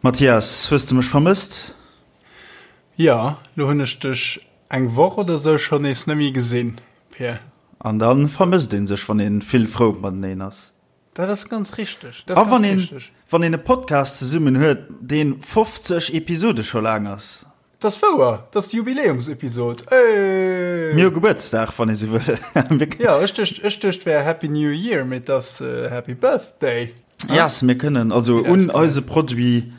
Mathias, hues de mech vermësst? Jo, lo hunn ech dech eng Woch oder sou schonn nees nemmi gesinn, Pir. An dann vermësst een sech, wann een vill frou mateneen ass. Dat ass ganz richteg. A wann een, wann een e Podcast zesummen huet, deen 50 Episode scho laang ass. Dat ass wouer, dat ass d'Jubiläumsepisod. Hey! Mir hu Gebuertsdag, wann ee sou wëll. Jo, ech duecht, ech duecht wär Happy New Year, mee et ass Happy Birthday. Yes, mir kënnen also un eise Produit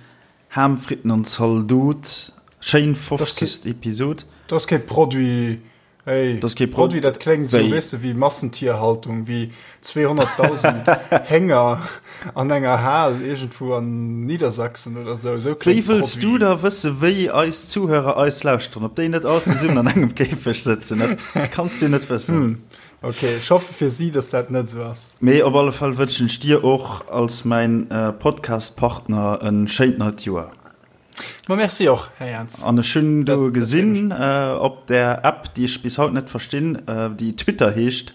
Ham, Fritten an Zaldot, schéin 50. Episod. Dat ass kee Produit. Hey, das kee Produit, dat kléngt sou, weess de, wéi Massentierhaltung, wéi 200.000 Hénger an enger Hal iergendwou an Niedersachsen oder sou. Sou Wéi kléngt wëlls du Produit. da wësse wéi eis Zuhörer eis lauschteren, ob déi net all zesummen an engem Käfeg sëtzen? Dat kanns du net wëssen. Hm, okay, ech hoffe fir si, dass dat net sou ass. Mee op alle Fall wënschen ech dir och als mäin Podcast-Partner e schéint neit Joer. Ma merci och, Här Jans. An ech hunn do gesinn op där App, déi ech bis haut net verstinn, déi Twitter heescht,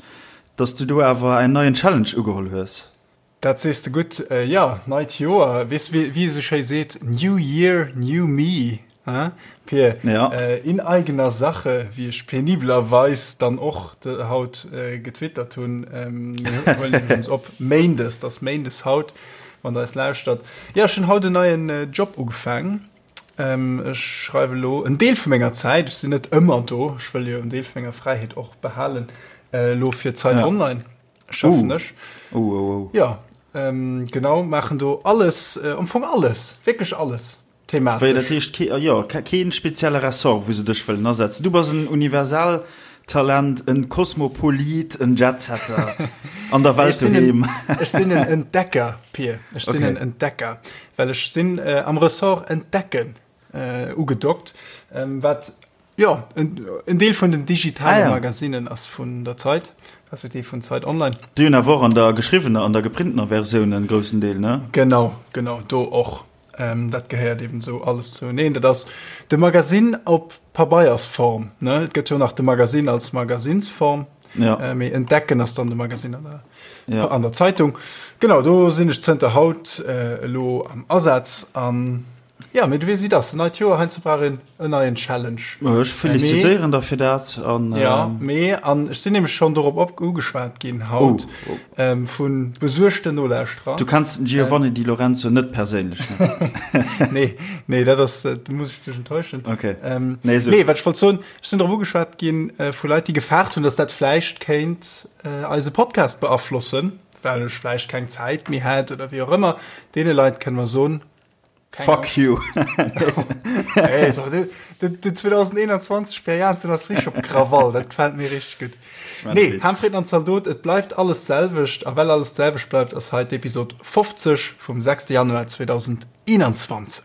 dass du do awer en neien Challenge ugeholl hues. Dat sees de gutt. Jo, neit Joer, weess wéi ee sou schéi seet, New year, new me, hein Pir? Ja. In eigener Sache, wéi ech penibelerweis dann och haut getwittert hunn. Mir huelen iwwregens op Méindes, et ass Méindes haut. Wann der eis lauschtert. Jo, ech hunn haut en neien Job ugefaang. Ech schreiwe lo en Deel vu menger Zäit, ech sinn net ëmmer do, ech wëll jo en Deel vu menger Fräiheet och behalen, elo fir Zeit Online schaffen ech. Oh, oh, oh. Jo, genau, maachen do alles, am Fong alles, wierklech alles. Thematesch. Wéi, dat heescht kee, jo, keen spezielle Ressort, wou se dech wëllen asetzen. Du bass en Universaltalent, en Kosmopolit, en Jetsetter an der Welt doheem. Ech sinn en Entdecker, Pir. Ech sinn en Entdecker, well ech sinn am Ressort Entdecken ugedockt, wat Jo, en Deel vun den digitale Magazinen ass vun der Zeit, respektiv vun Zeit Online. Déi hunn awer och an der geschriwwener an der geprintener Versioun en groussen Deel, ne? Genau, genau, do och. Dat gehéiert eben esou alles zoueneen. Dat ass de Magazin op Pabeiersform, ne? Et gëtt jo nach de Magazin als Magazinsform, mee Entdecken ass dann de Magazin an der, an der Zeitung. Genau, do sinn ech zënter haut elo am Asaz an Ja, mee du weess wéi et ass, en neit Joer, heiansdo brauch een en neien Challenge. Ech felicitéieren der fir dat an. Ja, mee an ech sinn nämlech schonn dorop op ugeschwat ginn haut vu besuergten Nolauschterer. Du kenns den Giovanni Di Lorenzo net perséinlech, ne? Nee, nee, dat ass, do muss ech dech enttäuschen. Okay. Nee, sou. Nee, wat ech wollt soen, ech sinn dorop ugeschwat ginn vu Leit, déi gefaart hunn, datt dat vläicht kéint eise Podcast beaflossen, well ech vläicht keng Zäit méi hätt oder wéi och ëmmer. Deene Leit kënne mer soen, Fuck you. Hey, so, de, de, de 2021 Per Jansen ass richtig op Krawall, dat gefällt mir richtig gut. Nee, Hamfried an Zaldot, et bleift alles d'selwecht, a well alles d'selwecht bleift, ass hei d'Episod 50 vum 6. Januar 2021.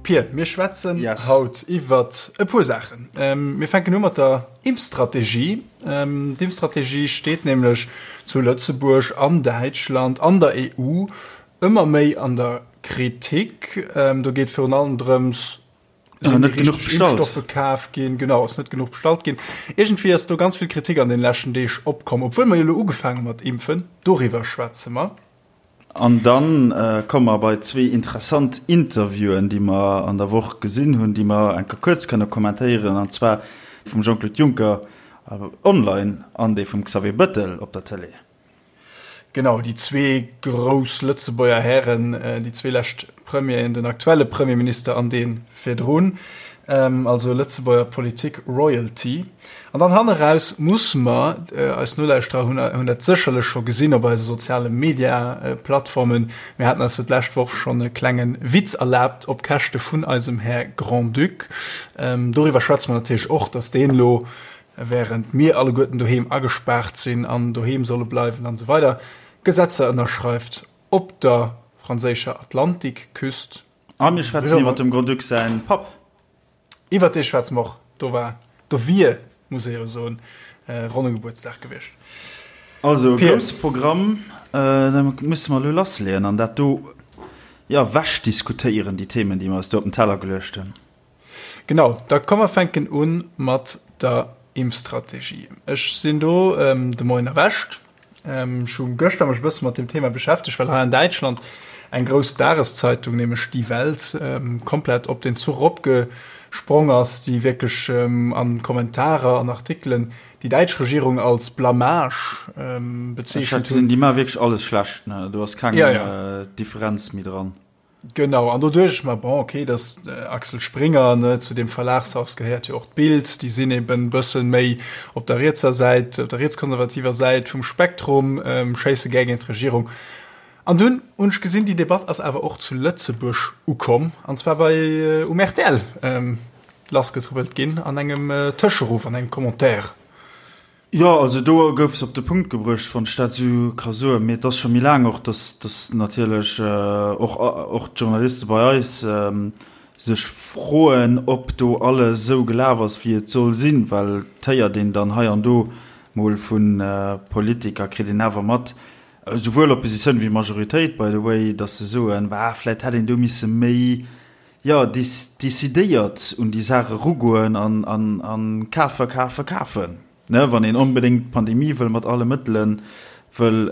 Pir, mir schwätzen yes. haut iwwer e puer Saachen. Ähm, mir fänken u mat der Impfstrategie. Ähm, D'Impfstrategie steet nämlech zu Lëtzebuerg an Däitschland an der EU ëmmer méi an der Kritik. Ähm, do geet virun allem drëms, sinn net genuch bestallt. Impfstoffe kaf ginn, genau, ass net genuch bestallt ginn. Iergendwéi ass do ganz vill Kritik an den leschten Deeg opkomm, obwuel mer jo elo ugefaange mat impfen. Doriwwer schwätze mer. An dann komme mer bei zwee interessant Interviewen, déi mer an der Woch gesinn hunn, déi mer eng Kéier kuerz kënne kommentéieren, an zwar vum Jean-Claude Juncker online an dee vum Xavier Bettel op der Tëlee. Genau, déi zwee grouss Lëtzebuerger Hären, déi zwee lescht Premieren, den aktuelle Premierminister an dee virdrun, also Lëtzebuerger Politik Royalty. An dann hanne raus musse mer, eis Nolauschterer hunn hunn dat sécherlech scho gesinn op eise soziale Media-Plattformen, mir haten eis jo d'lescht Woch schonn e klenge Witz erlaabt op Käschte vun eisem Här Grand-Duc. Doriwwer schwätze mer natierlech och, datt deen elo Während mir alleguerten doheem agespaart sinn an doheem solle bleiwen an esou weider Gesetzer ënnerschreift op der franséischer Atlantikküst. A mir schwätzen iwwer dem Grand-Duc säin Papp. Iwwer dee schwätze mer och. Do war, do wier, muss ee jo soen, ronne Gebuertsdag gewiescht. Also e grousse Programm, da musse mer elo lassleeën an dat do. jo, wechdiskutéieren, déi Themen, déi mer eis do op den Teller geluecht hunn. Genau, da komm mer fänken u mat der Impfstrategie. Ech sinn do de Moien erwächt. Ech hu gëschter mech e bësse mat deem Thema beschäftegt, well hei an Däitschland eng grouss Dageszeitung, nämlech Die Welt, komplett op den Zuch eropgesprong ass, déi wierklech a Kommentarer an Artikelen déi däitsch Regierung als Blamage bezeechent hunn. Déi maache wierklech alles schlecht, ne? Do ass keng Differenz méi dran. Genau, an do duecht ech mer, bon, okay, dat Axel Springer, ne, zu deem Verlagshaus gehéiert jo och d'Bild, déi sinn eben e bëssen méi op der rietser Säit, op der rietskonservativer Säit vum Spektrum, schéisse gär géint d'Regierung. An dunn hunn ech gesinn, déi Debatt ass awer och zu Lëtzebuerg ukomm, an zwar bei um rtl lassgetrëppelt ginn an engem Tëscheruff, an engem Commentaire. Jo, also do gouf se op de Punkt gebruecht, wann ech dat esou ka soen. Mee et ass scho méi laang och, datt, datt natierlech och, och d'Journaliste bei eis sech froen, ob do alles esou gelaf ass, wéi et soll sinn. Well et héiert een dann hei an do mol vu Politiker, kritt een awer mat, esouwuel Oppositioun wéi Majoritéit, by the way, datt se soen, Bah, vläicht hätt een do misse méi jo, decidéiert un déi Saach erugoen an kafen, kafen, kafen, ne, wann een onbedéngt d'Pandemie wëll mat alle Mëttele wëll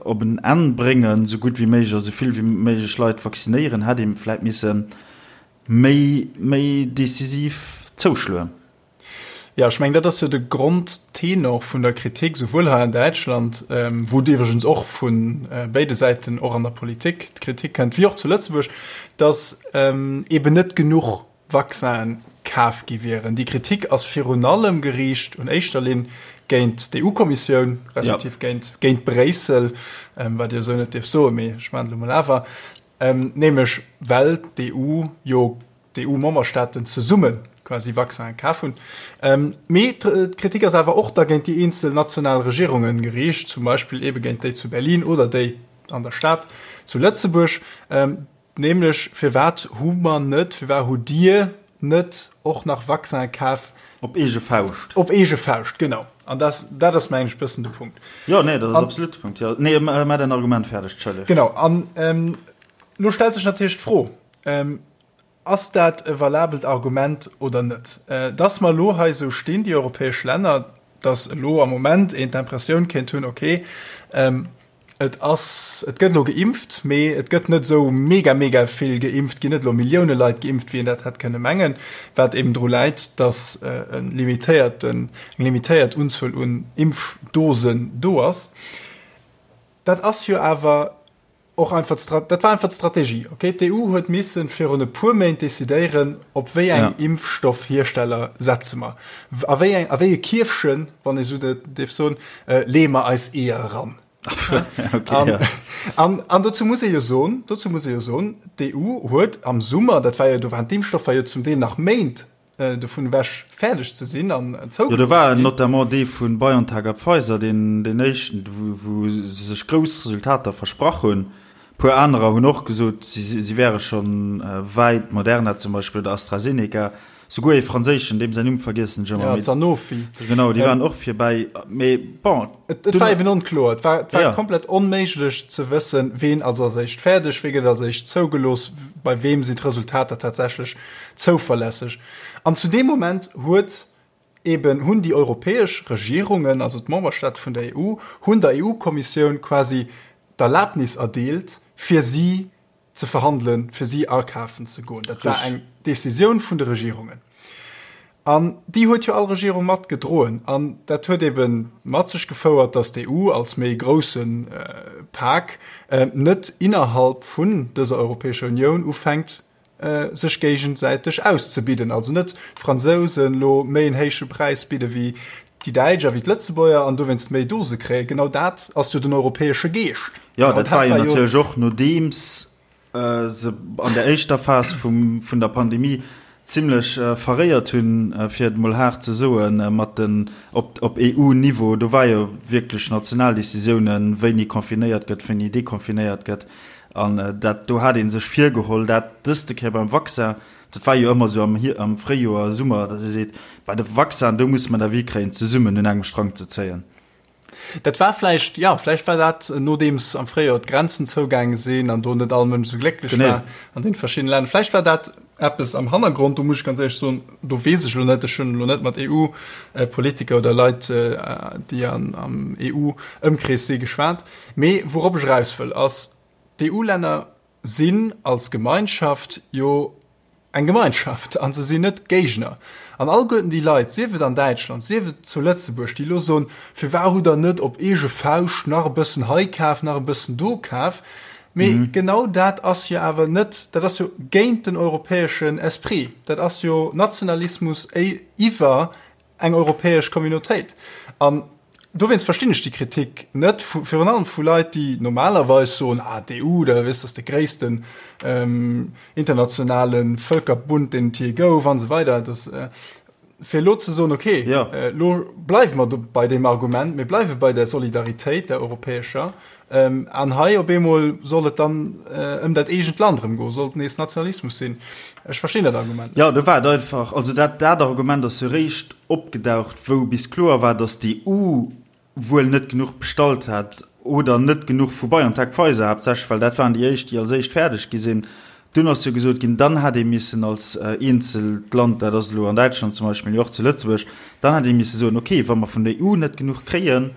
op en Enn bréngen, esou gutt wéi méiglech a esou vill wéi méiglech Leit vaccinéieren, hätt ee vläit misse méi, méi decisiv zouschloen. Jo, ech mengen, dat ass jo de Grondtenor vun der Kritik, souwuel hei an Däitschland, wou et iwwregens och vu béide Säiten, och an der Politik, d'Kritik kënnt, wéi och zu Lëtzebuerg, datt eeben net genuch Vaccinen kaf gi wieren. Déi Kritik ass virun allem geriicht un éischter Linn géint d'EU-Kommissioun, respektiv géint, géint Bréissel, wat ee jo esou net dierf soen, mee ech maachen et elo mol awer, nämlech well d'EU jo d'EU-Memberstaaten zesumme quasi Vaccinen kaf hunn. Mee d'Kritik ass awer och da géint déi eenzel national Regierunge geriicht, zum Beispill eebe géint déi zu Berlin oder déi an der Stad zu Lëtzebuerg. Nämlech, Firwat hu mer net, firwat hutt Dir net och nach Vaccinen kaf? Op eege Fauscht. Op eege Fauscht, genau. An dat, dat ass, mengen ech, e bëssen de Punkt. Jo, nee, dat ass absolut de Punkt, jo. Nee, maach däin Argument fäerdeg, Entschëlleg. Genau. An elo stellt sech natierlech d'Fro, Ass dat e valabelt Argument oder net? Dass mer elo hei esou stinn, déi europäesch Länner, dass elo am Moment een d'Impressioun kéint hunn, okay, et ass, et gëtt elo geimpft, mee et gëtt net esou mega, mega vill geimpft, ginn net elo Millioune Leit geimpft, wéi een dat hätt kënne mengen, wat eben dru läit, dass e limitéierten, eng limitéiert Unzuel un Impfdosen do ass. Dat ass jo awer Och einfach d'Stra-, dat war einfach d'Strategie, okay? D'EU huet missen virun e puer Méint decidéieren, op wéi eng ja. Impfstoffhiersteller setze mer. A wéi eng, a wéi e Kierfchen, wann ee sou dierf soen, äh, leeë mer eis Eeër eran. okay, an, ja. an, an dozou muss ee jo soen, dozou muss ee jo soen, d'EU huet am Summer, dat war jo, do waren d'Impfstoffer jo zum Deel nach Méint dovun ewech fäerdeg ze sinn an zougelooss ze ginn. Jo, do war notamment dee vu BioNTech a Pfizer, deen deen éischten, wou se sech grouss Resultater versprach hunn. E puer anerer hunn och gesot, si wäre scho wäit, Moderna zum Beispill oder AstraZeneca, souguer ee franséischen, deem säin Numm vergiessen ech ëmmer. Ja, Sanofi. Genau, déi waren och virbäi. Mee bon. Et war eben onkloer. Et war, et war komplett onméiglech ze wëssen, ween ass als éischt fäerdeg, wee gëtt als éischt zougelooss, bei weem sinn d'Resultater tatsächlech zouverlässeg. An zu deem Moment huet eben, hunn déi europäesch Regierungen, also d'Memberstaate vun der EU, hunn der EU-Kommissioun quasi d'Erlaabnis erdeelt, fir si ze verhandelen, fir si akafen ze goen. Dat war eng Décisioun vun de Regierungen. An déi huet jo all Regierung mat gedroen. An dat huet ebe mat sech gefouert, datt d'EU als méi grousse Pak net innerhalb vun dëser Europäescher Unioun ufänkt, sech géigesäiteg auszebidden, also net d'Fransousen elo méi en héiche Präis bidde wéi déi Däitsch a wéi d'Lëtzebuerger an dowéinst méi Dose kréien. Genau dat ass jo den europäesche Geescht. Jo, dat war jo natierlech och nodeems se an der éischter Phas vum vun der Pandemie zimlech verréiert hunn, fir et emol haart ze soen, mat den op op EU-Niveau. Do war jo wierklech national Decisiounen, wéini confinéiert gëtt, wéini deconfinéiert gëtt. An dat do hat ee sech virgeholl, dat dëste Kéier beim Vaccin, dat war jo ëmmer esou am am Fréijoer, Summer, datt ee seet, bei de Vaccin, do musse mer d'avis kréien, zesummen un engem Strang ze zéien. Dat war vläicht, jo, vläicht war dat, nodeems am Fréijoer d'Grenzen zougaange sinn an do net all Mënsch esou glécklech war an deene verschiddene Länner. Vläicht war dat eppes am Hannergrond, do muss ech ganz éierlech soen, do weess ech elo net, ech hunn elo net mat EU-Politiker oder Leit, déi am EU-Ëmkrees si geschwat. Mee wourop ech eraus wëll, ass, d'EU-Länner sinn als Gemeinschaft jo eng Gemeinschaft a se sinn net Géigner. An alleguerten déi Leit, sief et an Däitschland, sief et zu Lëtzebuerg, déi elo soen, Firwat hutt Der net op eege Fauscht nach e bëssen hei kaf, nach e bëssen do kaf? Mee genau dat ass jo awer net, dat ass jo géint den europäeschen Esprit, dat ass jo Nationalismus iwwer eng europäesch Communautéit. An dowéinst verstinn ech déi Kritik net, vu, virun allem vu Leit, déi normalerweis soen, ah, d'EU, da weess, ass de gréissten internationale Vëlkerbund, deen et jee gouf, an esou weider. Dass, fir elo ze soen, okay, elo bleiwe mer do bei deem Argument, mir bleiwe bei der Solidaritéit, der europäescher, An hei op eemol soll et dann ëm dat eegent Land erëm goen, soll et nees Nationalismus sinn. Ech verstinn dat Argument net. Jo, do war et einfach, also dat dat Argument ass jo réischt opgedaucht, wou bis kloer war, datt d'EU wuel net genuch bestallt hat oder net genuch vu BioNTech-Pfizer haaptsächlech, well dat waren déi éischt, déi als éischt fäerdeg gi sinn. Dunn ass jo gesot ginn, dann hätt ee missen als eenzelt Land, dat ass elo an Däitschland zum Beispill, mee och zu Lëtzebuerg, dann hätt ee misse soen, okay, wa mer vun der EU net genuch kréien,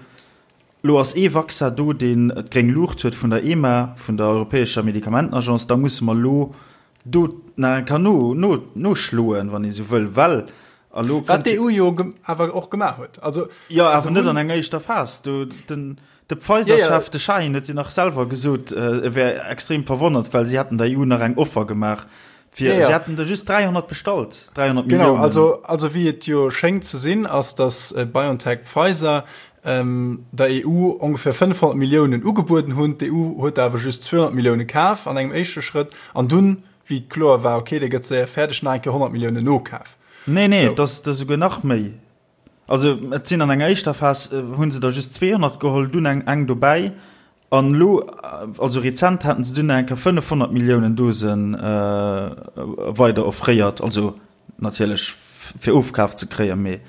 Lo ass ee Vaccin do, deen d'gréng Luucht huet vun der EMA, vun der europäescher Medikamentenagence. Da musse mer elo do nach eng Kéier no, no, noschloen, wann ee sou wëll, well a lo Wat kënnt. d'EU jo awer och gemaach huet. Also, Jo, awer net an enger éischter Phas. Do, den, de Pfizer-Chef, de Şahin, huet jo nach selwer gesot, e wär extrem verwonnert, well si hätten der EU nach eng Offer gemaach, fir, si hätten der just 300 bestallt, 300 Genau, Milliounen. also, also wéi et jo schéngt ze sinn, ass, datt BioNTech-Pfizer der EU ongeféier 500 Milliounen ugebueden hunn. D'EU huet der awer just 200 Millioune kaf an engem éischte Schrëtt an dunn, wéi kloer war, okay, dee gëtt séier fäerdeg, nach eng Kéier 100 Milliounen nokaf. Nee, nee, et ass esouguer nach méi. Also et sinn an enger éischter Phas hu se der just 200 geholl, dunn eng eng dobäi an elo, also rezent haten se dunn nach eng Kéier 500 Milliounen Dose weider offréiert, also natierlech fir ofkaf ze kréien, mee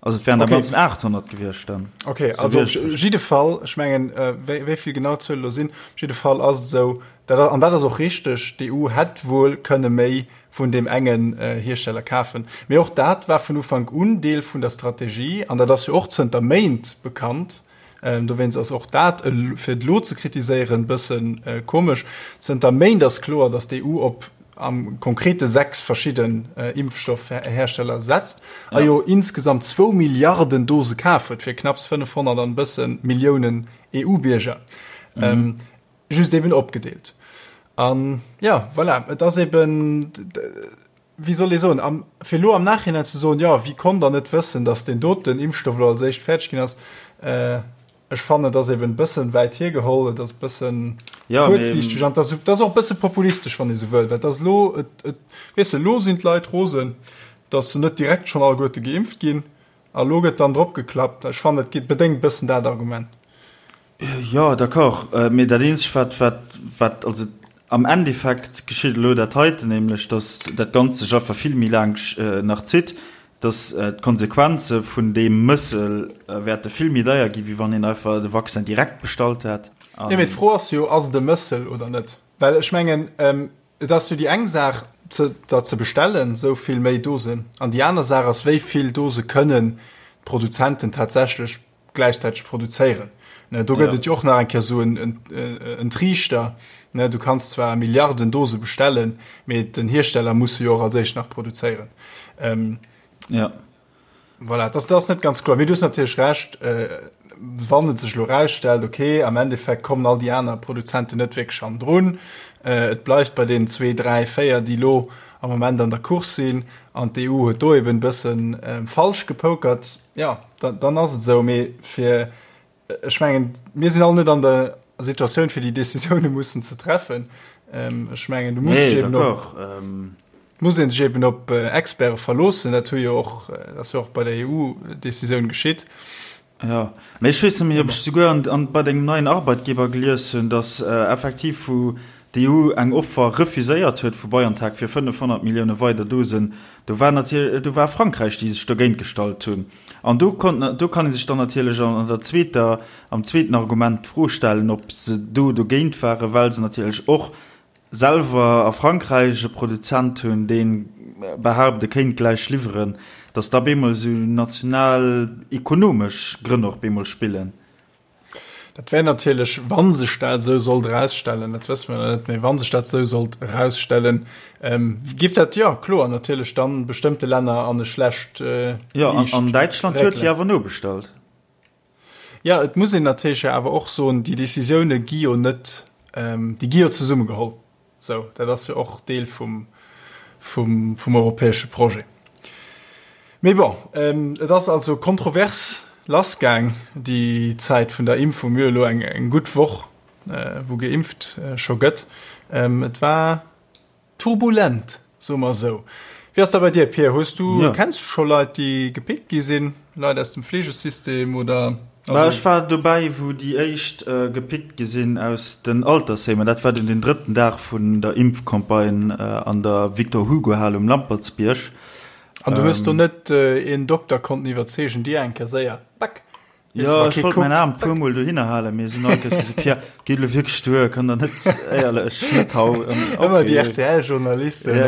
also et wären am Ganzen 800 gewiescht dann. Okay, also op jidde Fall, ech mengen, wéi vill genau d'Zuele elo sinn, op jidde Fall ass et esou, dat, an dat ass och richteg, d'EU hätt wuel kënne méi vun deem engen Hiersteller kafen. Mee och dat war vun Ufank un Deel vun der Strategie an dat ass jo och zënter Méint bekannt. Dowéinst ass och dat, fir et elo ze kritiséieren, e bësse komesch. Zënter Méint ass kloer, datt d'EU op am Konkrete 6 verschidden Impfstoffhersteller setzt a jo insgesamt zwou Milliarden Dose kaf huet fir knapps 500 an e bësse Milliounen EU-Bierger. Just eben opgedeelt. An jo, voilà, et ass eben, wéi soll ee soen, am, fir elo am Nachhinein ze soen, jo, wie konnt dann net wëssen, datt deen doten Impfstoff elo als éischt fäerdeg ginn ass, ech fannen, et ass eben e bëssen wäit hiergeholl, et ass e bëssen kuerzsiichteg an et ass, et ass och e bësse populistesch, wann ee sou wëll, well et ass elo, et, et, weess de, elo sinn d'Leit rosen, datt se net direkt schonn alleguerte geimpft ginn a elo gëtt dann drop geklappt. Ech fannen, et geet, bedéngt e bëssen dat Argument. Jo, d'accord, mee dat eenzegt wat, wat, wat, also am Endeffekt geschitt elo dat heiten, nämlech datt dat Ganzt sech einfach vill méi laang nach zitt, datt d'Konsequenze vun deem Mëssel wäerte vill méi deier ginn, wéi wann een einfach de Vaccin direkt bestallt hätt. Jo, mee d'Fro ass jo, ass et e Mëssel oder net? Well ech mengen, et ass jo déi eng Saach, der ze bestellen, esou vill méi Dosen, an déi aner Saach ass, wéi vill Dose kënnen d'Produzenten tatsächlech gläichzäiteg produzéieren. Ne, do gëtt et jo och nach eng Kéier esou en, en, en Triichter. Ne, du kanns zwar Milliarden Dose bestellen, mee den Hiersteller muss se jo och als éischt nach produzéieren. Ähm, ja. Voilà, das, das ass net ganz kloer. Mee du hues natierlech Recht, äh, wann et sech elo rausstellt, okay, am Endeffekt kommen all déi aner Produzenten net wierklech hannendrun, äh, et bleift bei deenen zwee, dräi, véier, déi elo am Moment an der Course sinn, an d'EU huet do eben e bëssen äh, falsch gepokert, ja, dann, dann ass et esou. Mee fir, ech mengen, mir sinn all net an der Situatioun, fir déi Decisioune mussen ze treffen. Ähm, ech mengen, du muss nee, eben op, ähm. muss een sech eben op äh, Experte verloossen. Dat hu jo och, äh, dat ass jo och bei der EU-Decisioun geschitt. Ja, mee ech weess net méi, ob ech souguer an, an bei dengem neien Arbeitgeber gelies hunn, dass äh, effektiv vu. D'EU eng Offer refuséiert huet vu BioNTech fir 500 Millioune weider Dosen, do war natierlech, do war Frankräich, déi sech dogéint gestallt hunn. An do konnt, do kann ee sech dann natierlech an der zweeter, am zweeten Argument d'Fro stellen, ob se do dogéint waren, well se natierlech och selwer a Frankräich e Produzent hunn, dee behaapt, e kéint gläich liwweren, datt da bemol esou national ekonomesch Grënn och bemol spillen. Dat wär natierlech, wa sech dat esou sollt erausstellen, dat wësse mer net, mä wa sech dat esou sollt erausstellen, géif dat, jo kloer, natierlech dann bestëmmte Länner an e schlecht Liicht réckelen. Jo, an Däitschland huet jo awer nobestallt. Jo, et muss een natierlech jo awer och soen, déi Décisioune gi jo net, déi gi jo zesummegeholl. Sou, dat ass jo och Deel vum, vum, vum europäesche Projet. Mee bon, et ass also kontrovers lassgaang, déi Zäit vun der Impfung. Mir hu elo eng, eng gutt Woch, wou geimpft scho gëtt. Et war turbulent, soe mer esou. Wéi ass dat bei dir, Pir? Hues du, kenns du scho Leit, déi gepickt gi sinn, Leit aus dem Fleegesystem oder? Bah, ech war dobäi, wou déi éischt gepickt gi sinn aus den Altersheemer. Dat war dunn den drëtten Dag vun der Impfcampagne an der Victor-Hugo-Hal um Lampertsbierg. An du hues do net een Dokter konnten iwwerzeegen, dir eng Kéier séier, back, Jo, ech wollt mäin Aarm puer mol dohinner halen, mee se hunn all Kéiers gesot, Pierre, geet elo wierklech duer, kann der net, éierlech, net hau. Ëmmer déi RTL-Journalisten.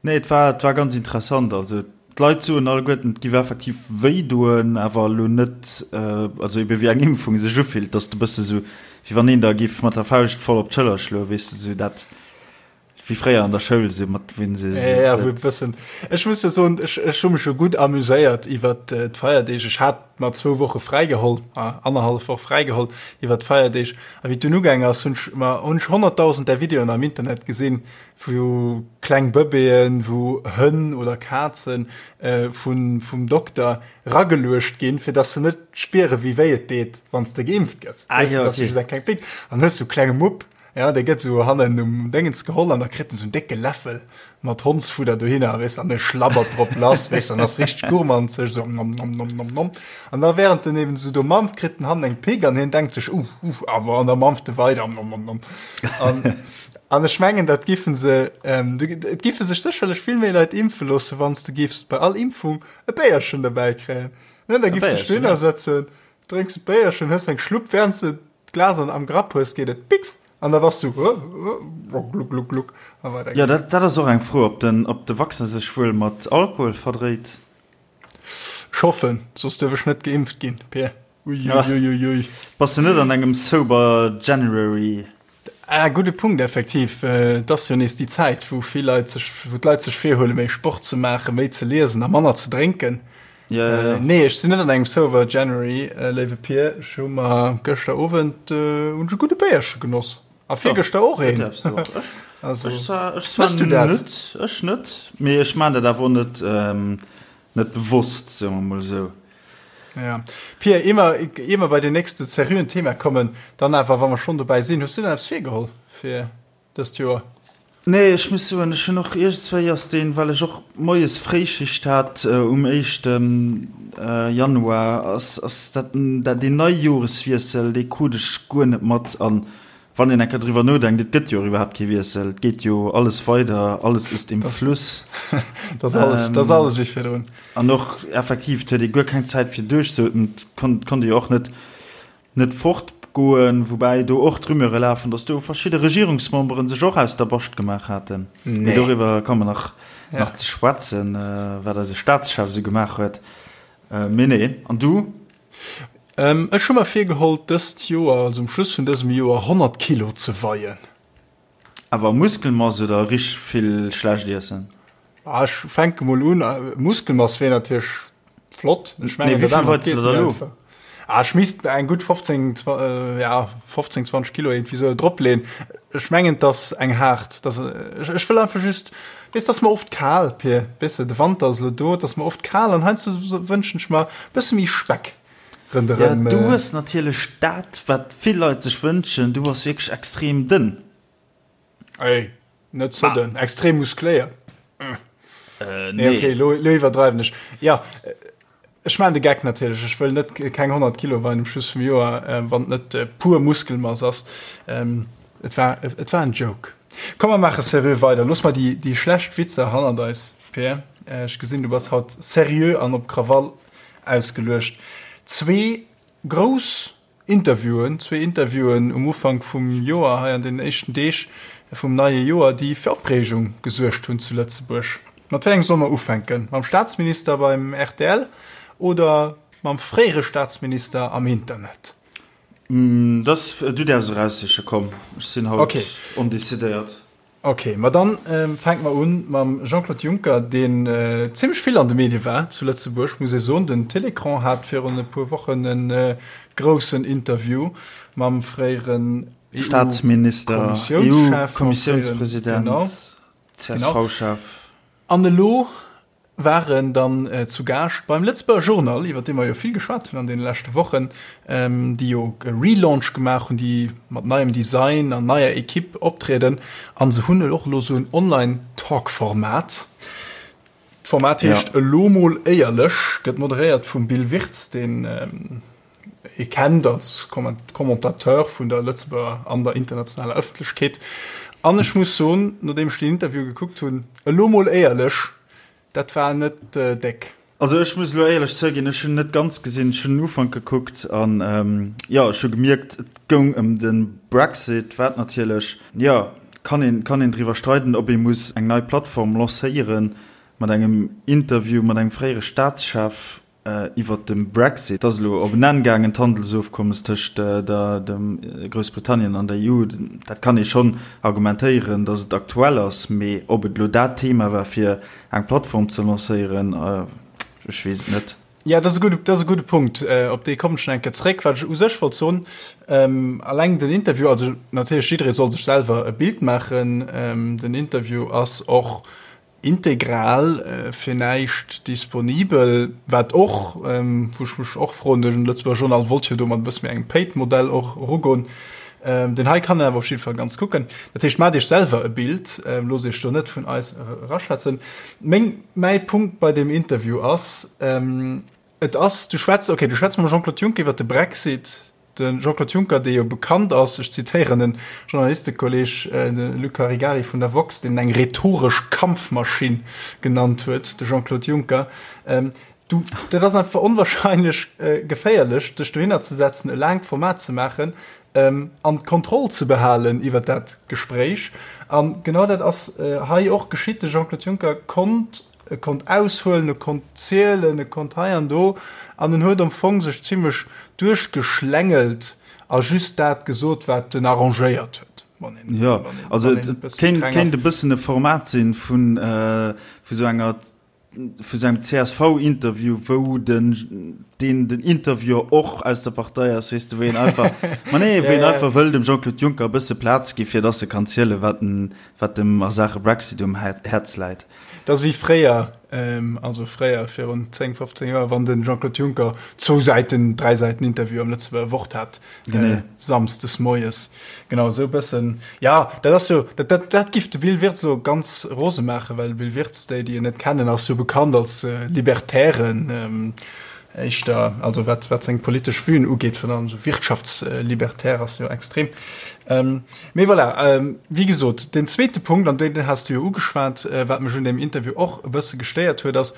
Nee, et war, et war ganz interessant. Also d'Leit soen alleguerten, et giff effektiv wéi doen, awer elo net, also ebe wéi eng Impfung sech ufillt, dass de bësse sou, wéi wann een der giff mat der Fauscht voll op d'Schëller schloen, weess de, sou dat wéi fréier an der Schoul, sou mat wéi se sou. Ja, wou e bëssen. Ech muss jo soen, ech, ech hu mech jo gutt amuséiert iwwert d'Feierdeeg. Ech hat mer zwou Woche fräigeholl, annerhallef Woch fräigeholl iwwert d'Feierdeeg. A wéi et dunn ugaang ass, hunn ech mer, hunn ech 100.000 där Videoen am Internet gesinn, wou kleng Bëbeeën, wou Hënn oder Kazen vun vum Dokter rageluecht ginn, fir dass se net spiere wéi wéi et deet, wann s de geimpft gëss. Ah, ja, okay. Just eng kleng Pick an hues sou klenge Mupp, ja, dee gëtt sou hannen um Déngens geholl an da kritt en sou en décke Läffel mat Hondsfudder dohinner, weess, an e schlabbert drop lass, weess, an ass richteg gourmanzeg, sou nom nom nom nom nom. An da während en eben sou do mampft, kritt en hannen eng Pick an hien denkt sech, uh, uh, awer an da mampft e weider, nom nom nom. An An ech mengen, dat giffen se, et giffe sech sécherlech vill méi Leit impfe loossen, wann s de giffs bei all Impfung e Béierchen derbäi kréien. Ne, da giffs dech dohinner setzen, drénks e Béierchen, hues eng Schlupp, während s de d'Glas an am Grapp hues, geet et piks an da bass du gluck, gluck, gluck a weider Jo, geet. dat, dat ass och eng Fro, ob den, ob de Vaccin sech wuel mat Alkohol verdréit. Ech hoffen, soss duerf ech net geimpft ginn, Pir. Uiuiuiui. Bass de net an engem Sober January? Ah, gudde Punkt, effektiv. Et ass jo nees déi Zäit, wou vill Leit sech, wou d'Leit sech virhuelen, méi Sport ze maachen, méi ze liesen a manner ze drénken. Ja, ja, ja. Nee, ech sinn net an engem Sober January, léiwe Pir. Ech hu mer gëschter Owend hunn ech e gudde Béierche genoss. A virgëschter och een. Dat däerfs du och. Ech, Also, ech zwar, ech zwar mëss du dat? net, ech net, mee ech maan dat awer och net, net bewosst, soe mer mol esou. Ja. Pia, ier mer, ier mer bei den nächste seriöen Thema kommen, dann awer, wa mer schonn dobäi sinn, hues du denn eppes virgeholl fir dëst Joer? Nee, ech muss soen, ech hunn och iergendswéi ass deen, well ech och moies Fréischicht hat um éischte Januar, ass, ass dat, dat deen Neijoreswiessel, dee krut ech guer net mat. An Wann een eng Kéier driwwer nodenkt, et gëtt jo och iwwerhaapt kee Wiessel, et geet jo alles weider, alles ist im Fluss. Dat ass alles, dat ass alles wéi virdrun. An och effektiv, et huet ee guer keng Zäit fir duerchzeootmen, et konnt, konnt ee jo och net, net fortgoen, woubäi do och d'Rumeure lafen, datt do verschidde Regierungsmembere sech och aus der Bascht gemaach haten. Mee doriwwer komme mer nach, nach ze schwätzen, wat eise Staatschef esou gemaach huet. Mee nee, an du? Ech hu mer virgeholl dëst Joer, also um Schluss vun dësem Joer, 100 Kilo ze weien. Awer Muskelmass oder richteg vill schlecht iessen? Ah, ech fänke mol un. Muskelmass wier natierlech flott. Ech mengen, dat anert geet méi einfach. Ah, ech misst eng gutt 15, ja, 15, 20 Kilo iergendwéi sou dropleeën. Ech mengen, et ass eng haart, dass, ech wëll einfach just, weess, et ass mer oft kal, Pir, weess de, de Wanter ass elo do, et ass mer oft kal an heiansdo wënschen ech mer e bësse méi Speck ronderëm. Ja, du hues natierlech dat, wat vill Leit sech wënschen, du bass wierklech extrem dënn. Ey, net ze dënn, extrem muskléiert. Nee, okay, lo, lo iwwerdreiwen ech. Ja, ech maan de Geck natierlech. Ech wëll net keng 100 Kilo weien um Schluss vum Joer, wann et net pur Muskelmass ass. Et war, et war en Joke. Komm mer maache seriö weider. Looss mer déi, déi schlecht Witzer hannert eis, Peer. Ech gesinn, du bass haut seriö an op Krawall ausgeluecht. Zwee grouss Interviewen, zwee Interviewen um Ufank vum Joer, hei an den éischten Deeg vum neie Joer, déi fir Opreegung gesuergt hunn zu Lëtzebuerg. Mat wéi engem solle mer ufänken? Mam Staatsminister beim rtl oder mam fréiere Staatsminister am Internet? Dass, du däerfs eraussiche, komm, ech sinn haut ondecidéiert. Ok, ma dann fänke mer un mam Jean-Claude Juncker, deen zimmlech vill an de Medie war zu Lëtzebuerg, muss ee soen. Den Télécran hat virun e puer Wochen e groussen Interview mam fréieren EU-Staatsminister, EU-Kommissiounspresident, CSV-Chef. An elo waren dann zu Gaascht beim Lëtzebuerger Journal, iwwer dee mer jo vill geschwat hunn an deene leschte Wochen, déi jo e Relaunch gemaach hunn, déi mat neiem Design an neier Equipe optrieden. A se hunn och elo esou en Online-Talk-Format. D'Format heescht Elo mol éierlech, gëtt moderéiert vum Bill Wirtz, deen ee kennt als Commentateur vun der Lëtzebuerger an der internationaler Ëffentlechkeet. An ech muss soen, nodeem ech deen Interview gekuckt hunn, elo mol éierlech, dat war net déck. Also ech muss elo éierlech zouginn, ech hunn net ganz gesinn, ech hunn den Ufank gekuckt an jo, ech hu gemierkt, et goung ëm de Brexit, wat natierlech, jo, kann een, kann een driwwer streiden, ob ee muss eng nei Plattform lancéieren mat engem Interview mat engem fréiere Staatschef. Iwwert de Brexit ass elo op en Enn gaangen, d'Handelsofkommes tëscht der dem Groussbritannien an der EU. Dat kann ee schonn argumentéieren, datt et aktuell ass, mee ob et elo dat Thema war fir eng Plattform ze lancéieren, ech weess et net. Jo, dat ass e gudde, dat ass e gudde Punkt. Op dee kommen ech nach eng Kéier zréck. Wat ech u sech wollt soen, alleng den Interview, also natierlech jidderee soll sech selwer e Bild maachen, den Interview ass och Integral fir näischt disponibel, wat och, wou ech mech och froen, de Lëtzebuerger Journal wollt jo do mat e bësse méi engem Paid-Modell och erugoen. Deen hei kann een awer op jidde Fall ganz kucken. Dat heescht, maacht Iech selwer e Bild, loosst Iech do net vun eis eraschwätzen. Meng, mäi Punkt bei deem Interview ass, et ass, du schwätz, okay, du schwätz mam Jean-Claude Juncker iwwert de Brexit, De Jean-Claude Juncker, dee jo bekannt ass, ech zitéieren en Journalistekolleg, de Luc Caregari vun der woxx, deen en eng rhetoresch Kampfmaschinn genannt huet, de Jean-Claude Juncker, du, dat ass einfach onwahrscheinlech geféierlech, dech dohinner ze setzen, e laangt Format ze maachen an d'Kontroll ze behalen iwwer dat Gespréich. A genau dat ass hei och geschitt. De Jean-Claude Juncker konnt E konnt aushuelen, e konnt zielen, e konnt hei an do, an en huet am Fong sech zimlech duerchgeschlängelt a just dat gesot, wat en arrangéiert huet, wann een, Jo, wann een, also wann een e et bësse kéint, streng ass. kéint e bëssen e Format sinn vun, vu sou enger, vu sou engem CSV-Interview, wou den, deen den Interviewer och aus der Partei ass, weess de, wou een einfach, ma nee, wou een einfach wëll dem Jean-Claude Juncker e bësse Plaz gi fir dass e kann zielen, wat en, wat em a Saache Brexit um Häerz läit. Dat ass wéi fréier, also fréier virun 10, 15 Joer, wann de Jean-Claude Juncker zwou Säiten, dräi Säiten Interview am Lëtzebuerger Wort hat, samsdes moies. Genau esou e bëssen. Jo, dat ass jo, dat, dat, dat giff de Bill Wirtz elo ganz rose maachen, well de Bill Wirtz, déi, déi en net kennen, ass jo bekannt als Libertären. Éischter, also wat, wat seng politesch Vuen ugeet, virun allem esou wirtschaftslibertär ass jo extrem. Ähm, mee voilà, ähm, wéi gesot, den zweete Punkt, an deen has du jo ugeschwat, äh, wat mech un deem Interview och e bësse gestéiert huet, ass,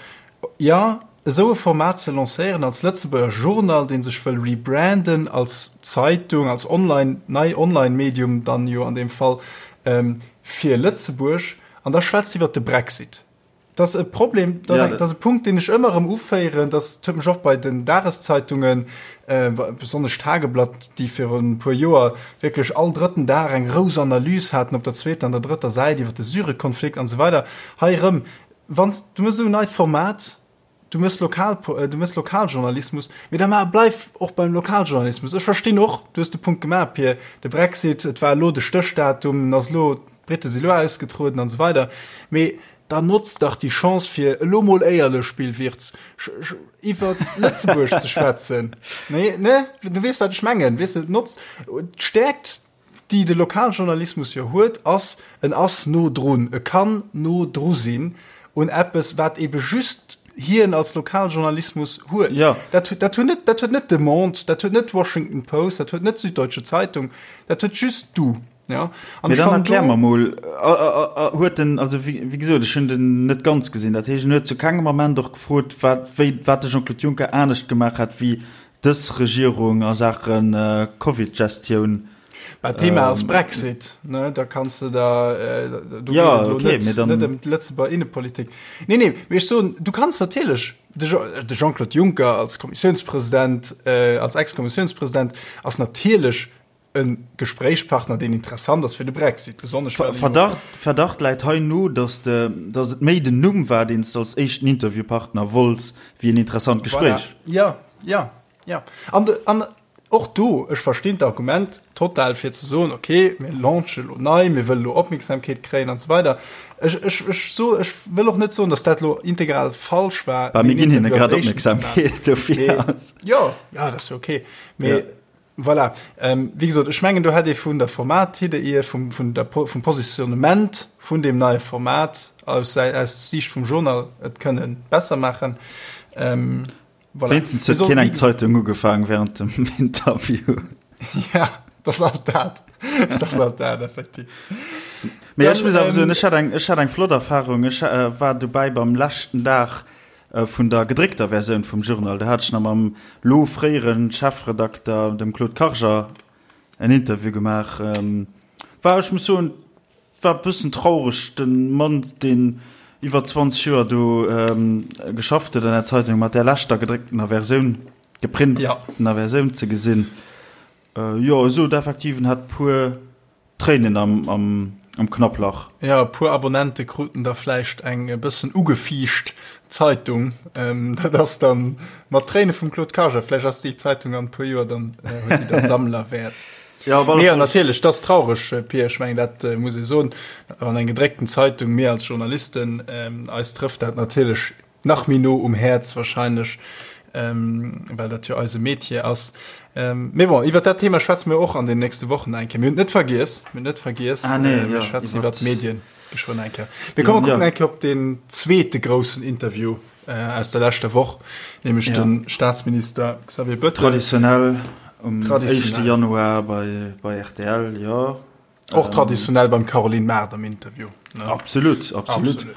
jo, esou e Format ze lancéieren als Lëtzebuerger Journal, dee sech wëll rebranden als Zeitung, als Online, nei Online-Medium dann jo an deem Fall, ähm, fir Lëtzebuerg, an da schwätzt iwwert de Brexit. Dat ass e Problem, dat ass, dat ass e Punkt, deen ech ëmmer erëm uféieren. Dat huet mech och bei den Dageszeitungen, äh, besonnesch d'Tageblatt, déi virun e puer Joer wierklech all drëtten Dag eng grouss Analys haten op der zweeter an der drëtter Säit iwwer de Syrekonflikt an esou weider. Hei erëm, wann s du méchs esou en neit Format, du méchs Lokal, du méchs Lokaljournalismus, mee da mar, bleif och beim Lokaljournalismus. Ech verstinn och, du hues de Punkt gemaach, Pir, de Brexit, et war elo de Stéchdatum, en ass elo, d'Brite si elo ausgetrueden an esou weider, mee Da notz dach déi Chance fir elo mol éierlech, Bill Wirtz, iwwer Lëtzebuerg ze schwätzen. Nee, ne? Du weess wat ech mengen. Weess de, notz d'Stäerkt, déi de Lokaljournalismus jo huet, ass, en ass no drun. E kann no dru sinn un eppes, wat ebe just hien als Lokaljournalismus huet. Ja. Dat, dat huet net, dat huet net de Monde, dat huet net d'Washington Post, dat huet net d'Süddeutsche Zeitung, dat huet just du. Ja. An Mee dann erklär mer mol, huet den, also wéi gesot, ech hunn den net ganz gesinn, dat heescht en huet zu kengem Ament och gefrot, wat, wéi, wat de Jean-Claude Juncker anescht gemaach hätt wéi dës Regierung a Saache Covid-Gestioun. Bah, d'Thema ass Brexit, ne, da kanns de da, do geet et elo net, net ëm d'Lëtzebuerger Innepolitik. Nee, nee, mee ech soen, du kanns natierlech, de Jean-Claude Juncker als Kommissiounspresident, als Ex-Kommissiounspresident ass natierlech e Gespréichspartner, deen interessant ass fir de Brexit, besonnesch well e jo. Verdacht, Verdacht läit hei no, dass de, dass et méi den Numm war, deen s de als éischten Interviewpartner wollts, wéi en interessant Gespréich. Voilà. Jo, jo, jo. An, an och do, ech verstinn d'Argument total, fir ze soen, okay, mir launche lo nei, mir wëlle lo Opmierksamkeet kréien an esou weider. Ech, ech, ech so, ech wëll och net soen, dass dat lo integral falsch war, Bah, mir ginn hinne grad Opmierksamkeet, dofir ass. Jo, jo, dat ass jo okay. Mee. Voilà. Wéi gesot, ech mengen, do hätt ee vun der Formatidee hier, vum, vun der, vum Positionnement vun deem neie Format aus, aus Siicht vum Journal et kënnen besser maachen. Voilà. Wéinstens huet keen eng Zeitung ugefaangen während dem Interview. Ja, dat ass alt dat. Dat ass alt dat, effektiv. Mee ech muss awer soen, ech hat eng, ech hat eng flott Erfahrung. Ech war dobäi beim leschten Dag Vun der gedréckter Versioun vum Journal, do hat ech nach mam lo fréiere Chefredakter, dem Claude Karger, en Interview gemaach. War, ech muss soen, war e bëssen traureg, de Mann, deen iwwer 20 Joer do geschafft huet an der Zeitung, mat där leschter gedrécktener Versioun, geprintener Versioun ze gesinn. Jo, e sot effektiv, en hätt puer Tréinen am Knapplach. Jo, e puer Abonnente kruten da vläicht eng e bëssen ugefiicht Zeitung. Dat ass dann mat Tréine vum Claude Karger. Vläicht ass déi Zeitung an e puer Joer dann, huet déi da Sammlerwäert. Jo, op alle Fall. Mee natierlech, dat ass traureg, Pir. Ech mengen, dat muss ee soen. Wann eng gedréckten Zeitung, mir als Journalisten, eis trëfft dat natierlech Nach méi no um Häerz wahrscheinlech, well dat jo eise Metier ass. Mee bon, iwwer dat Thema schwätze mir och an den nächste Wochen eng Kéier. Mir hunn et net vergiess, mir hunn et net vergiess. Ah, nee, mir schwätzen iwwer d'Medien geschwënn eng Kéier. Mir kommen kucken eng Kéier op deen zweete groussen Interview aus der leschter Woch, nämlech de Staatsminister Xavier Bettel. Traditionell um éischte Januar bei rtl, jo. Och traditionell beim Caroline Mart am Interview. Ne? Absolut, absolut. absolut.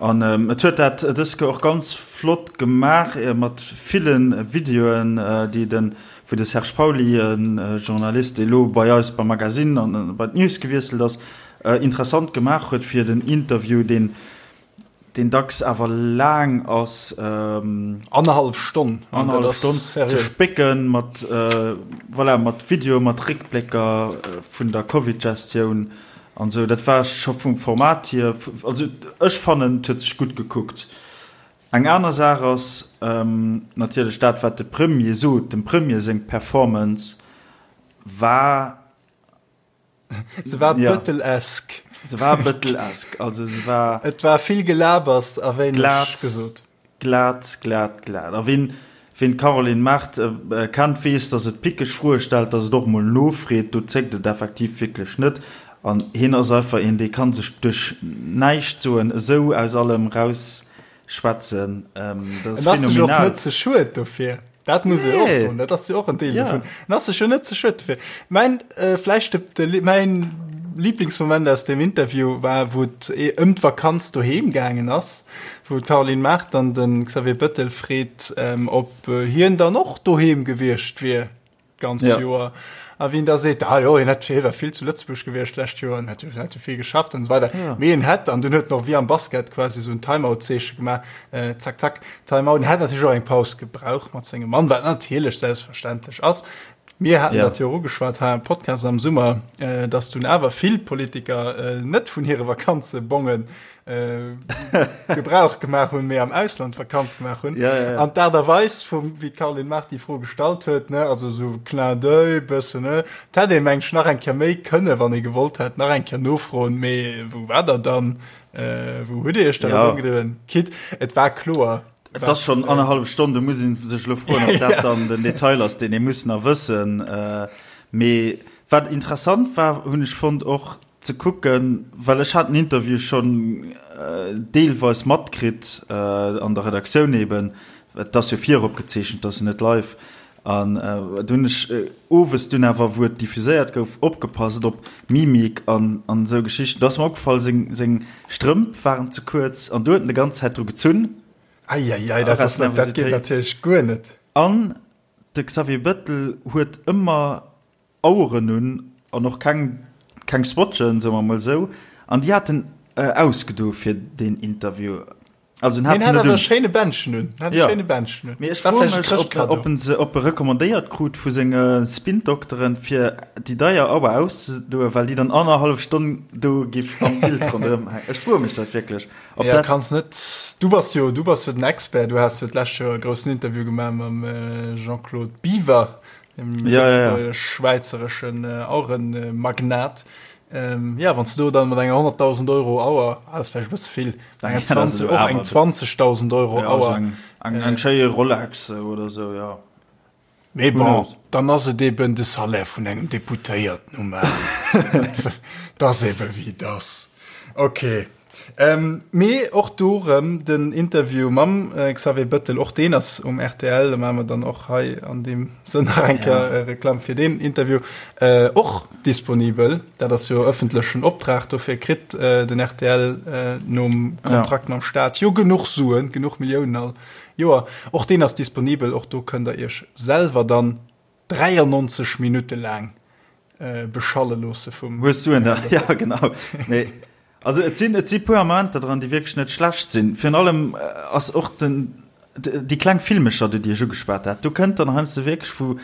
An ähm, et huet dat dës Kéier och ganz flott gemaach äh, mat villen Videoen, äh, déi den wou de Serge Pauly, en äh, Journalist, dee lo bei eis beim Magazine an äh, bei d'News gewiesselt ass, äh, interessant gemaach huet fir den Interview, deen deen dacks awer laang ass, Annerhallef Stonn, annerhallef Stonn ze spécken mat, voilà, mat Videoe, mat Réckblécker vun der Covid-Gestioun an esou. Dat war scho vum Format hier, also ech fannen, et huet sech gutt gekuckt. Eng aner Saach ass natierlech dat, wat de Premier sot. Dem Premier seng Performance war Se war ja. Bëttelesk. Se war bëttelesk. Also se war. Et war vill Gelabers a wéineg gesot. Glat, glat, glat. A wien, wien d'Caroline Mart äh, kennt, weess, datt et pickeg Froe stellt, datt et och mol nofreet. Do zéckt et effektiv wierklech net. An hien ass einfach een, dee kann sech duerch näischt soen esou aus allem rausschwätzen. Ähm, dat ass phänomenal. En ass sech och net ze schued dofir. Dat muss nee. och soen, dat ass jo och en Deel ja. dovun. En ass sech jo net ze schued dofir. Mein, äh, vläicht de, de, mein Lieblingsmoment aus dem Interview war, wou et eh ëm d'Vakanz doheem gaangen ass, wou d'Caroline Mart dann den Xavier Bettel freet, ähm, ob äh, hien dann och doheem gewiescht wier d'ganzt ja. Joer. A wien da seet, ah jo, hien hätt hie war vill zu Lëtzebuerg gewiescht d'lescht Joer an hätt hätt jo vill geschafft an esou weider. Ja. Mee en hätt, an dunn huet en och wéi am Basket quasi esou en Timeout-Zeeche gemaach, äh, zack, zack, Timeout. En hätt natierlech och eng Paus gebraucht mat sengem Mann, wat natierlech selbstverständlech ass. Mir haten ja. dat jo och ugeschwat hei am Podcast am Summer, äh, dass dunn awer vill Politiker äh, net vun hire Vakanzebongen äh, Gebrauch gemaach hunn, mee am Ausland Vakanz gemaach hunn. Ja, ja, ja. An d'Aart a Weis vum wéi d'Caroline Mart déi Fro gestallt huet, ne, also sou Clin d'oeil bëssen, ne, et hätt ee meng ech nach eng Kéier méi kënne, wann ee gewollt hätt, nach eng Kéier nofroen, mee wou war der dann, äh, wou hutt Dir iech dann ja. ëmgedriwwen? Quitte, et war kloer. Et ass schonn äh, annerhallef Stonn, do muss ee sech elo froen, ob dat dann den Detail ass, deen ee muss nach wëssen. Äh, mee wat interessant war, hunn ech fonnt och, Ze kucken, well ech hat den Interview schonn deelweis matkritt an der Redaktioun eben, et ass jo viropgezeechent, et ass jo net live. An do hunn ech owes dunn awer, wou et diffuséiert gouf, opgepasst op Mimik an an esou Geschichten. Do ass mer opgefall, seng seng Strëmp waren ze kuerz an do huet en de ganz Zäit dru gezunn. Eieiei, dat ass dat geet natierlech guer net. An de Xavier Bettel huet ëmmer Aueren un an och keng keng Swatchen, soe mer mol esou, an déi hat en ausgedo fir deen Interview. Also en hat se net un. Schéine Bändchen un. Hat e schéine Bändchen un. Mee ech froe mech, ob, ob en se, ob e recommandéiert krut vu senge Spin-Dokteren, fir déi deier Auer auszedoen, well déi dann annerhallef Stonn do giff am Bild ronderëm hänken. Ech froe mech dat wierklech. Ob ja, dat kanns net. Du bass jo, du bass jo den Expert. Du has jo d'lescht Joer e groussen Interview gemaach mam Jean-Claude Biver. dem ja, ja, ja. schwäizereschen äh, Aurenmagnat. Ähm, ja, wann du dann mat enger 100.000 Euro Auer ah, das vielleicht bësse vill eng 20, och eng 20.000 Euro ja, Auer eng, eng, eng äh, Rolex oder so ja. Mee bon, dann ass et eben de Salaire vun engem Deputéierten um Enn. Dat ass eben wéi et ass. Okay. Mee och do rëm den Interview mam Xavier Bëttel, och deen ass um rtl, da maache mer dann och hei an deem Sënn nach eng Kéier Reklamm fir deen Interview, och disponibel. Dat ass jo ëffentlechen Optrag, dofir kritt den rtl nom Kontrakt mam Staat jo genuch Suen, genuch Milliounen all Joer. Och deen ass disponibel, och do kënnt der Iech selwer dann 93 Minutte laang beschalle loosse vum. Hues du en da? Ja, genau. Nee. Also et sinn, et si puer Momenter dran, déi wierklech net schlecht sinn. Virun allem ass och den, déi kleng Filmecher, déi ech ugeschwat hat, do kënnt dann heiansdo wierklech, wou,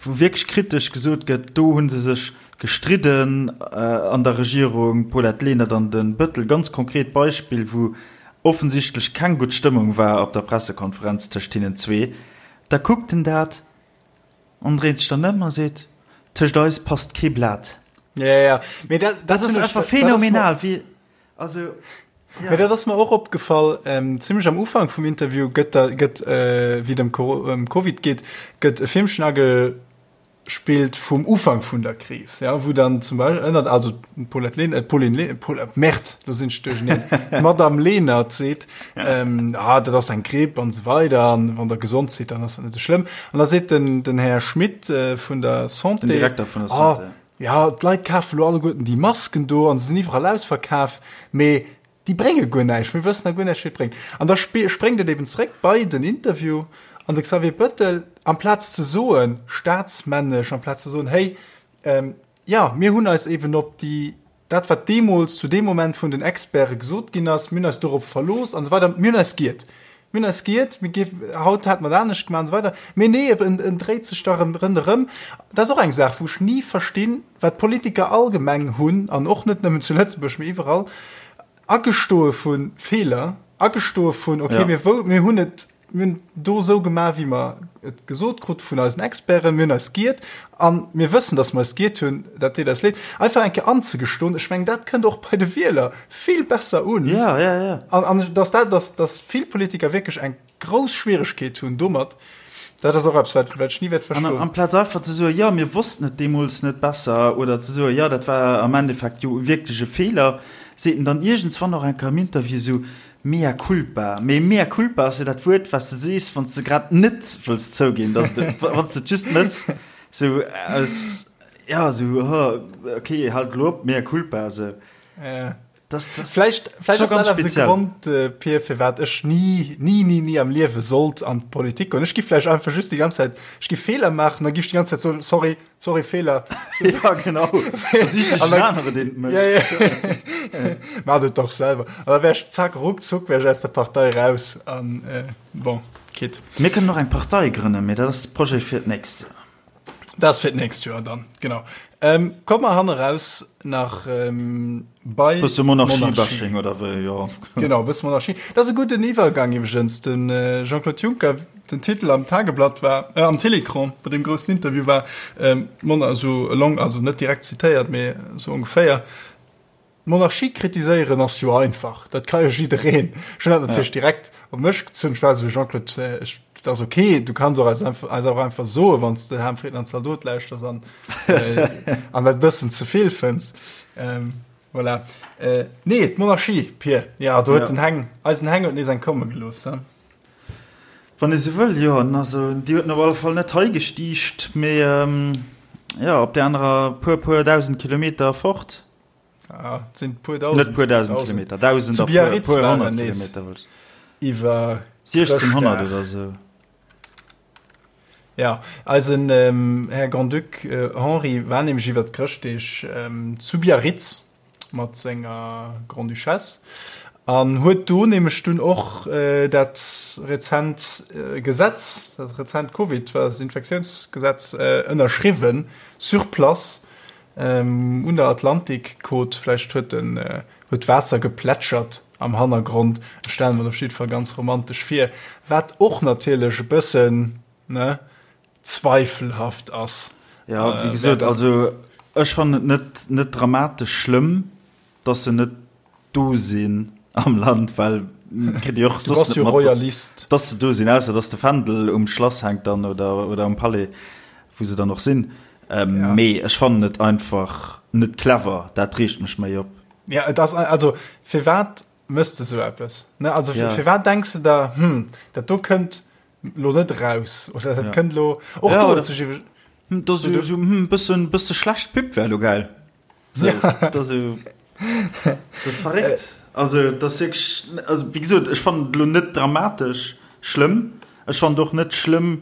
wou wierklech kritesch gesot gëtt, do hu se sech gestridden an der Regierung, d'Paulette Lenert an de Bëttel, ganz konkret Beispill, wou offensichtlech keng gutt Stëmmung war op der Pressekonferenz tëscht hinnen zwee. Da kuckt en dat An dréit sech dann ëm a seet, Tëscht eis passt kee Blat. Ja, ja. Mee dat, dat, dat ass einfach phänomenal, wéi, also, ja. Mee dat ass mer och opgefall, ähm, zimmlech am Ufank vum Interview gëtt da, gëtt, äh, wéi et ëm ëm Covid geet, gëtt e Filmchen agespillt vum Ufank vun der Kris, ja, wou dann zum Beispill ënnert, also d'Paulette Lehn, äh, d'Pauline Lehn, Paul, Merde, lo sinn ech duercherneen, d'Madame Lenert seet, ähm, ah, dat ass eng Gripp an esou weider, an wann der gesond sidd, dann ass dat net esou schlëmm. An da seet den, den Här Schmit äh, vun der Santé, Den Direkter vun der Santé. Ah, ja, d'Leit kafe lo alleguerten déi Masken do an se sinn iwwerall ausverkaf, mee déi brénge guer näischt, mir wëssen da guer näischt, wéi et bréngt. An da spréngt et eben zréck bei den Interview an de Xavier Bettel, amplaz ze soen, staatsmännesch, amplaz ze soen, hey, ähm, jo, mir hunn eis eben op déi Dat, wat deemools zu deem Moment vun den Experte gesot ginn ass, mir hunn eis dorop verlooss an esou weider, mir hunn eis giert. Mir hunn eis giert, mir géif, haut hätte mer et anescht gemaach an esou weider. Mee nee, en, en dréit sech da rëm ronderëm. Dat ass och eng Saach, wou ech ni verstinn, wat d'Politiker allgemeng hunn, an och net nëmmen zu Lëtzebuerg, mee iwwerall, Agestoe vu Feeler, agestoe vun, okay, mir wou, mir hunn et, Mir hunn do esou gemaach, wéi mer et gesot krute vun eisen Experten. Mir hunn eis giert a mir wëssen, datt mer eis giert hunn. Dat deet eis leed. Einfach eng Kéier anzegestoen, ech mengen, dat kënnt och bei de Wieler vill besser un. Ja, ja, ja. An, an datt dat, datt, datt vill Politiker wierklech eng grouss Schwieregkeet hunn domat, dat ass och eppes, wat, wat ech ni wäert verstoen. An amplaz einfach ze soen, jo, mir wossten et deemools net besser, oder ze soen, jo, dat war am Endeffekt jo wierklech e Feeler, seet en dann iergendswann och eng Kéier am Interview esou, Mea culpa. Mee mea culpa ass jo dat Wuert, wat s de sees, wann s de grad net wëlls zouginn, dass de, wann s de et just méchs, sou aus, ja, sou, oh, okay, haalt elo op, mea culpa, sou. Ja. Das, das Vläicht, vläicht ass dat awer de Grond, äh, Pir, firwat ech ni, ni, ni, ni am Liewe sollt an d'Politik goen. Ech gi vläicht einfach just déi ganz Zäit, ech gi Feeler maachen, da gi ech déi ganz Zäit soen, sorry, Sorry, Fehler. ja, genau. Anere, den ja, ja. Mach et doch selber. An da wär ich zack, ruckzuck wär ich aus der Partei raus. An, äh, bon, geht. Mir kënnen och eng Partei grënnen, mee dat ass de Projet fir d'nächst Joer. Dat ass fir d'nächst Joer dann, genau. Ähm, komm mer hanne raus nach ähm, bei Bësse Monarchie-Bashing oder wéi, jo. Genau, bësse Monarchie. Dat ass e gudden Iwwergang iwwregens. Den äh, Jean-Claude Juncker, den Titel am Tageblatt war, äh, am Télécran, bei deem groussen Interview war, ähm, Mon also along, also net direkt zitéiert, mee sou ongeféier, D'Monarchie kritiséieren ass jo einfach, dat ka jo jiddereen. Ech hunn dat natierlech direkt op mech gezunn. Ech war esou, Jean-Claude, ech, dat ass ok, du kanns och eis einfach, eis och einfach soen, wann s de Ham Frieden an Zaldot lauschters an, äh, an dat bëssen ze vill fënns. Ähm, voilà. Äh, nee, d'Monarchie, Pir, ja, do huet ja. den Heng, eisen Heng huet nees eng komme gelooss. He? Wann ee sou wëll, jo. Also déi huet en op alle Fall net hei gestiicht, mee jo, op där anerer puer, puer 1.000 Kilometer fort. Ah, et sinn puer 1.000. Net puer 1.000 Kilometer, 1.000 a puer, puer 100 Kilometer, wëll ech. Iwwer 1.600 oder sou. Ja, eisen Här Grand-Duc Henri war nämlech iwwer d'Chrëschtdeeg zu Biarritz mat senger Grande-Duchesse an huet do nämlech dunn och dat rezent Gesetz, dat rezent Covid-Infektiounsgesetz ënnerschriwwen sur place un der Atlantikkot. Vläicht huet en huet d'Waasser geplätschert am Hannergrond. Ech stelle mer dat op jidde Fall ganz romantesch vir, wat och natierlech e bëssen, ne, zweifelhaft ass. Ja, wéi gesot, also ech fannen et net, net dramatesch schlëmm, dass se net do sinn am Land, well kritt Dir och soss net mat, dass, dass se do sinn, ausser dass de Fändel um Schlass hänkt dann oder, oder um Palais, wou se dann och sinn. Ähm, ja. Mee ech fannen et einfach net clever, dat reegt mech méi op. Ja, et ass, also firwat mëss de sou eppes? Ne, also ja. firwat denks de da, hm, dat do kënnt lo net raus oder dat ja. kënnt lo och ja, do, oder, hm, das so, so, hm, bëssen, bësse schlecht Pub wär lo geil. So, ja. das, so, das verréckt. Äh. Also das wirklich, also wie gesot, ech fand lo net dramatesch schlëmm. Ech fand och net schlëmm,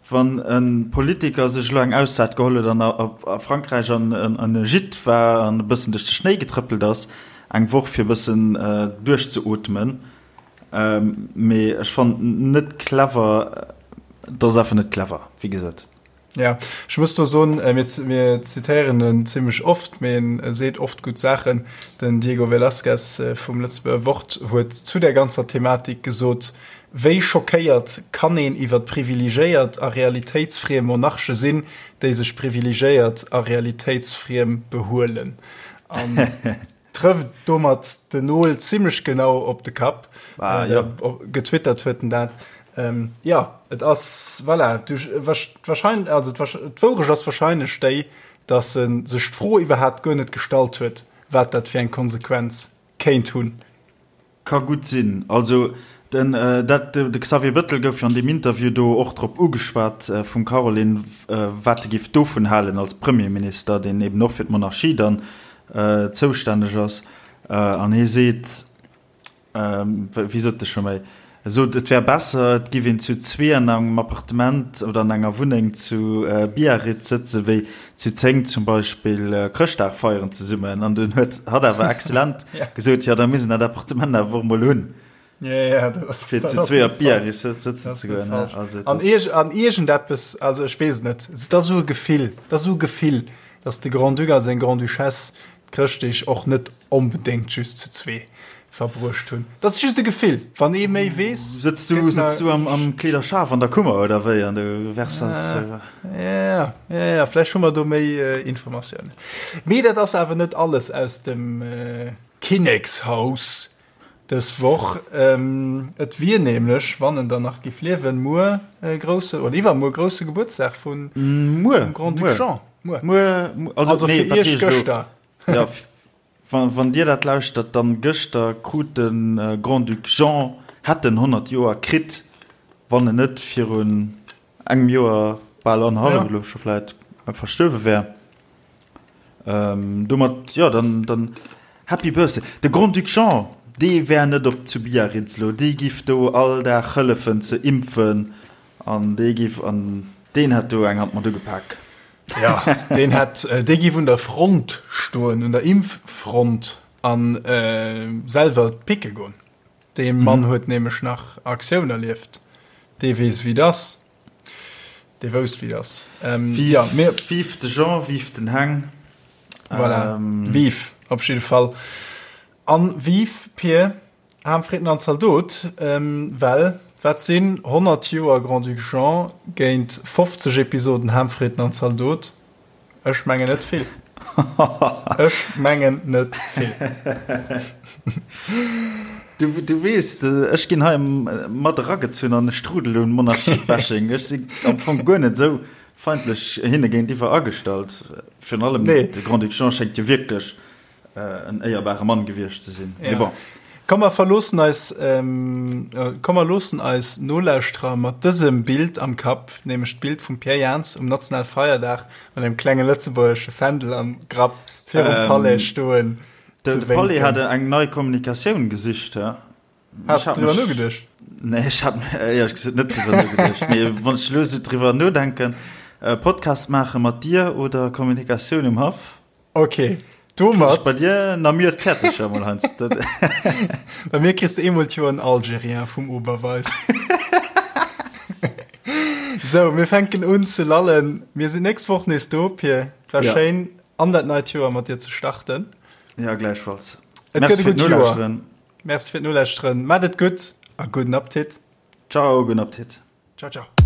Wann e Politiker sech elo eng Auszäit geholl huet an a Frankräich an e Gîte war an e bëssen duerch de Schnéi getrëppelt ass, eng Woch fir e bëssen duerchzeootmen. Mee ech fannen et net clever, et ass einfach net clever, wéi gesot. Jo, ech muss do soen, mir zitéieren en zimmlech oft, mee en seet oft gutt Saachen. Den Diego Velázquez vum Lëtzebuerger Wort huet zu där ganzer Thematik gesot, Wéi schockéiert kann een iwwer privilegéiert a realitéitsfriem Monarche sinn, déi sech privilegéiert a realitéitsfriem behuelen? An trëfft domat den Nol zimmlech genau op de Kapp. Ah, ja. Getwittert huet en dat. Ähm, ja, et ass, voilà, du, wahrscheinlich, also d'Wourecht ass wahrscheinlech déi, dass e sech d'Fro iwwerhaapt guer net gestallt huet, wat dat fir eng Konsequenz kéint hunn. Ka gutt sinn. Also den dat de Xavier Bëttel gouf jo an deem Interview do och drop ugeschwat vum Caroline, wat e géif dovun halen als Premierminister, deen eben och fir d'Monarchie dann zoustänneg ass. An hie seet, wéi sot e scho méi, E sot, et wär besser, et giff een zu zwee an engem Appartement oder an enger Wunneng zu Biarritz sëtzen, wéi zu 10 zum Beispill Chrëschtdag feieren zesummen. An dunn huet hatt awer exzellent gesot, jo, da misst een dat Appartement awer och emol hunn, fir zu zwee op Biarritz sëtzen ze goen. An an iergendeppes, also ech weess et net, et ass esou e Gefill, et ass esou e Gefill, datt de Grand-Duc a seng Grande-Duchesse d'Chrëschtdeeg och net onbedéngt just zu zwee verbruecht hunn. Dat ass just e Gefill. Wann ee méi weess. Sëtz du, sëtz du am, am Kleederschaf an der Kummer oder wéi an du wärs das. Ja, ja, ja, vläicht hu mer do méi Informatiounen. Mee dat ass awer net alles aus dem Kinnekshaus dës Woch. Et wier nämlech, wann en dann nach giff liewen, muer grousse oder iwwermuer grousse Gebuertsdag vun Grand-Duc Jean. Muer. Muer, also, also nee, fir Iech gëschter. Ja, wann, wann Dir dat lauschtert, dann gëschter krut de Grand-Duc Jean, hätt en 100 Joer kritt, wann en net virun engem Joer, bal annerhallef elo scho vläit, verstuerwe wär. Ähm, domat, jo, dann, dann Happy Birthday. De Grand-Duc Jean, dee wär net op zu Biarritz elo, dee giff do all Dag hëllefen ze impfen an dee giff, an deen hätt do eng Hand mat ugepak. Ja, deen hätt, dee giff un der Front stoen, un der Impffront an selwer picke goen. Dee Mann huet nämlech nach Aktioun erlieft. Dee weess, wéi et ass. Dee wousst, wéi et ass. Ja, mir. Vive de Jean, vive den Heng. Voilà, vive op jidde Fall. An vive Pier Ham, Fritten an Zaldot, well wat sinn 100 Joer Grand-Duc Jean géint 50 Episoden Ham, Fritten an Zaldot? Ech mengen net vill. Ech mengen net vill. Du, du weess, ech ginn hei mat eragezunn an e Strudel un Monarchie-Bashing. Ech sinn am Fong guer net esou feindlech hinne géintiwwer agestallt. Virun allem de Grand-Duc Jean schéngt jo wierklech en éierbare Mann gewiescht ze sinn. Mee bon. Komm mer verloossen eis, komm mer loossen eis Nolauschterer mat dësem Bild am Kapp, nämlech d'Bild vum Pierre Jans um nationale Feierdag mat engem klenge lëtzebuergesche Fändel am Grapp virum Palais stoen ze wénken. De Palais hat eng nei Kommunikatioun gesicht, he? Has de driwwer nogeduecht? Nee, ech hat éierlech gesot net driwwer nogeduecht. Mee wann ech elo esou driwwer nodenken, Podcast maache mat dir oder Kommunikatioun um Haff? Ok, domat. Bei dir na mir d'Käertecher mol heiansdo. Bei mir kriss de eemol d'Joer en Algerien vum Oberweis. Sou, mir fänken un ze lallen. Mir sinn nächst Woch nees do, Pir. Et war ja. schéin, an dat neit Joer mat dir ze starten. Ja, gläichfalls. Et gëtt e gutt Joer. Merci fir d'Nolauschteren. Maat et gutt a gudden Appetit. Ciao, gudden Appetit. Ciao, ciao.